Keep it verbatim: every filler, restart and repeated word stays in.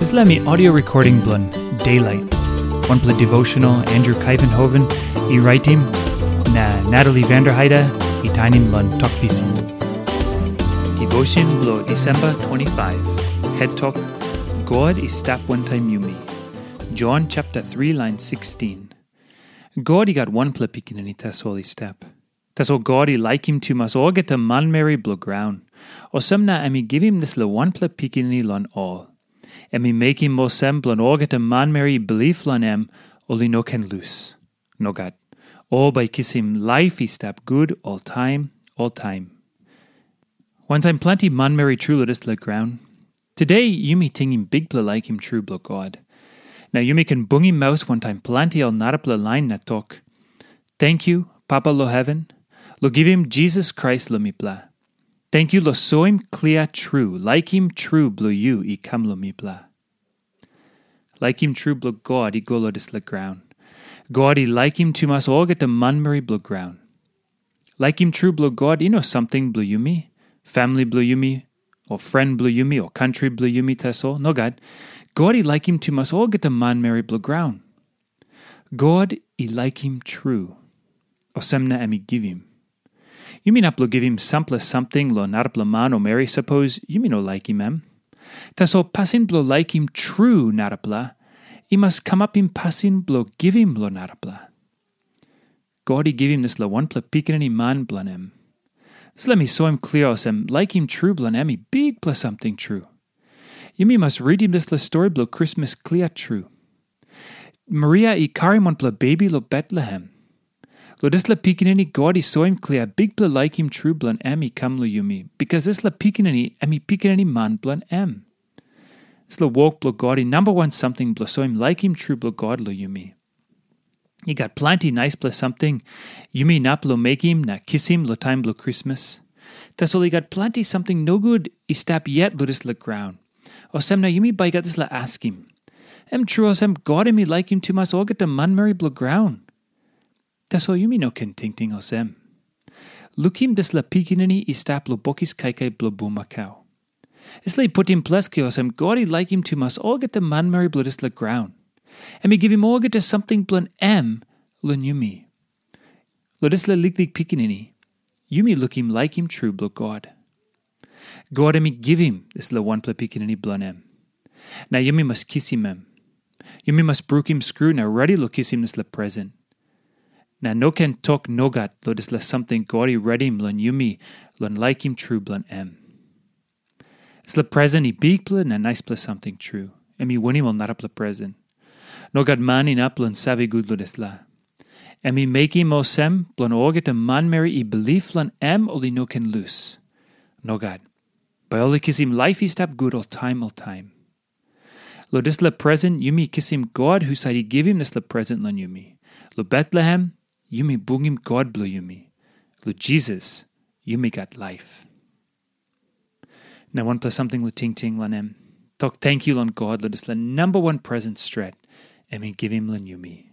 Dispela mi audio recording bilong Daylight, wanpela devotional Andrew Kaivenhoven i raitim, na Natalie Vanderheide i tainim long Tok Pisin. Devotion bilong Disemba twenty-five, het tok, God i stap wantaim yumi. Jon chapter three, lain sixteen. God i gat wanpela pikinini tasol i stap. Tasol God i laikim tumas olgeta manmeri bilong graun. Olsem na em i givim dispela wanpela pikinini long ol. Em i mekim olsem bilong olgeta manmeri i bilip long em, ol i no ken lus. Nogat. Ol bai kisim laip i stap gut oltaim, oltaim. Wantaim planti manmeri tru long dispela graun, today yumi tingim bikpela laikim tru bilong God. Na yumi ken bungim maus wantaim planti ol narapela lain na tok, "Tenkyu, Papa long heven, long givim Jisas Krais long mipela. Tenkyu long soim klia tru laikim tru bilong yu i kam long mipela." Laikim tru bilong God i go long dispela graun. God i laikim tumas olgeta manmeri bilong graun. Laikim tru bilong God i no samting bilong yumi, famili bilong yumi, o fren bilong yumi, o kantri bilong yumi tasol. Nogat. God i laikim tumas olgeta manmeri bilong graun. God i laikim tru. Olsem na em i givim. Yumi inap long givim sampela samting long narapela man o meri sapos yumi no laikim em. Tasol pasin bilong laikim tru narapela i mas kamapim pasin bilong givim long narapela. God i givim dispela wanpela pikinini man bilong em. Dispela mi soim klia olsem laikim tru bilong em i bikpela samting tru. Yumi mas ritim dispela stori bilong Krismas klia tru. Maria i karim wanpela bebi long Betlehem. Long dispela pikinini God i soim klia bikpela laikim tru bilong em i kam long yumi, bikas dispela pikinini em i pikinini man bilong em. Dispela wok bilong God i namba wan samting bilong soim laikim tru bilong God long yumi. I gat planti naispela samting yumi inap long mekim na kisim long taim bilong Krismas. Tasol i gat planti samting nogut i stap yet long dispela graun. Olsem na yumi bai gat dispela askim, em tru olsem God em i laikim tumas olgeta manmeri bilong graun? Tasol yumi no ken tingting olsem. Lukim dispela pikinini i stap long bokis kaikai bilong bulmakau. Dispela i putim ples klia olsem God i laikim tumas olgeta manmeri bilong dispela graun. Em i givim olgeta samting bilong em long yumi. Long dispela liklik pikinini, yumi lukim laikim tru bilong God. God em i givim dispela wanpela pikinini bilong em. Na yumi mas kisim em. Yumi mas brukim skru na redi long kisim dispela present. Na no ken tok nogat long dispela samting God i redim long yumi long laikim tru bilong em. Dispela present i bikpela na naispela samting tru. Em i winim ol narapela present. Nogat man inap long save gut long dispela. Em i mekim olsem bilong olgeta manmeri i bilip long em ol i no ken lus. Nogat. Bai ol i kisim laip i stap gut oltaim oltaim. Long dispela present yumi kisim God husat i givim dispela present long yumi. Long Betlehem, yumi bungim God bilong yumi. Long Jisas, yumi gat laip. Na wanpela samting long tingting long em. Tok tenkyu long God long dispela namba wan present stret em i givim long yumi.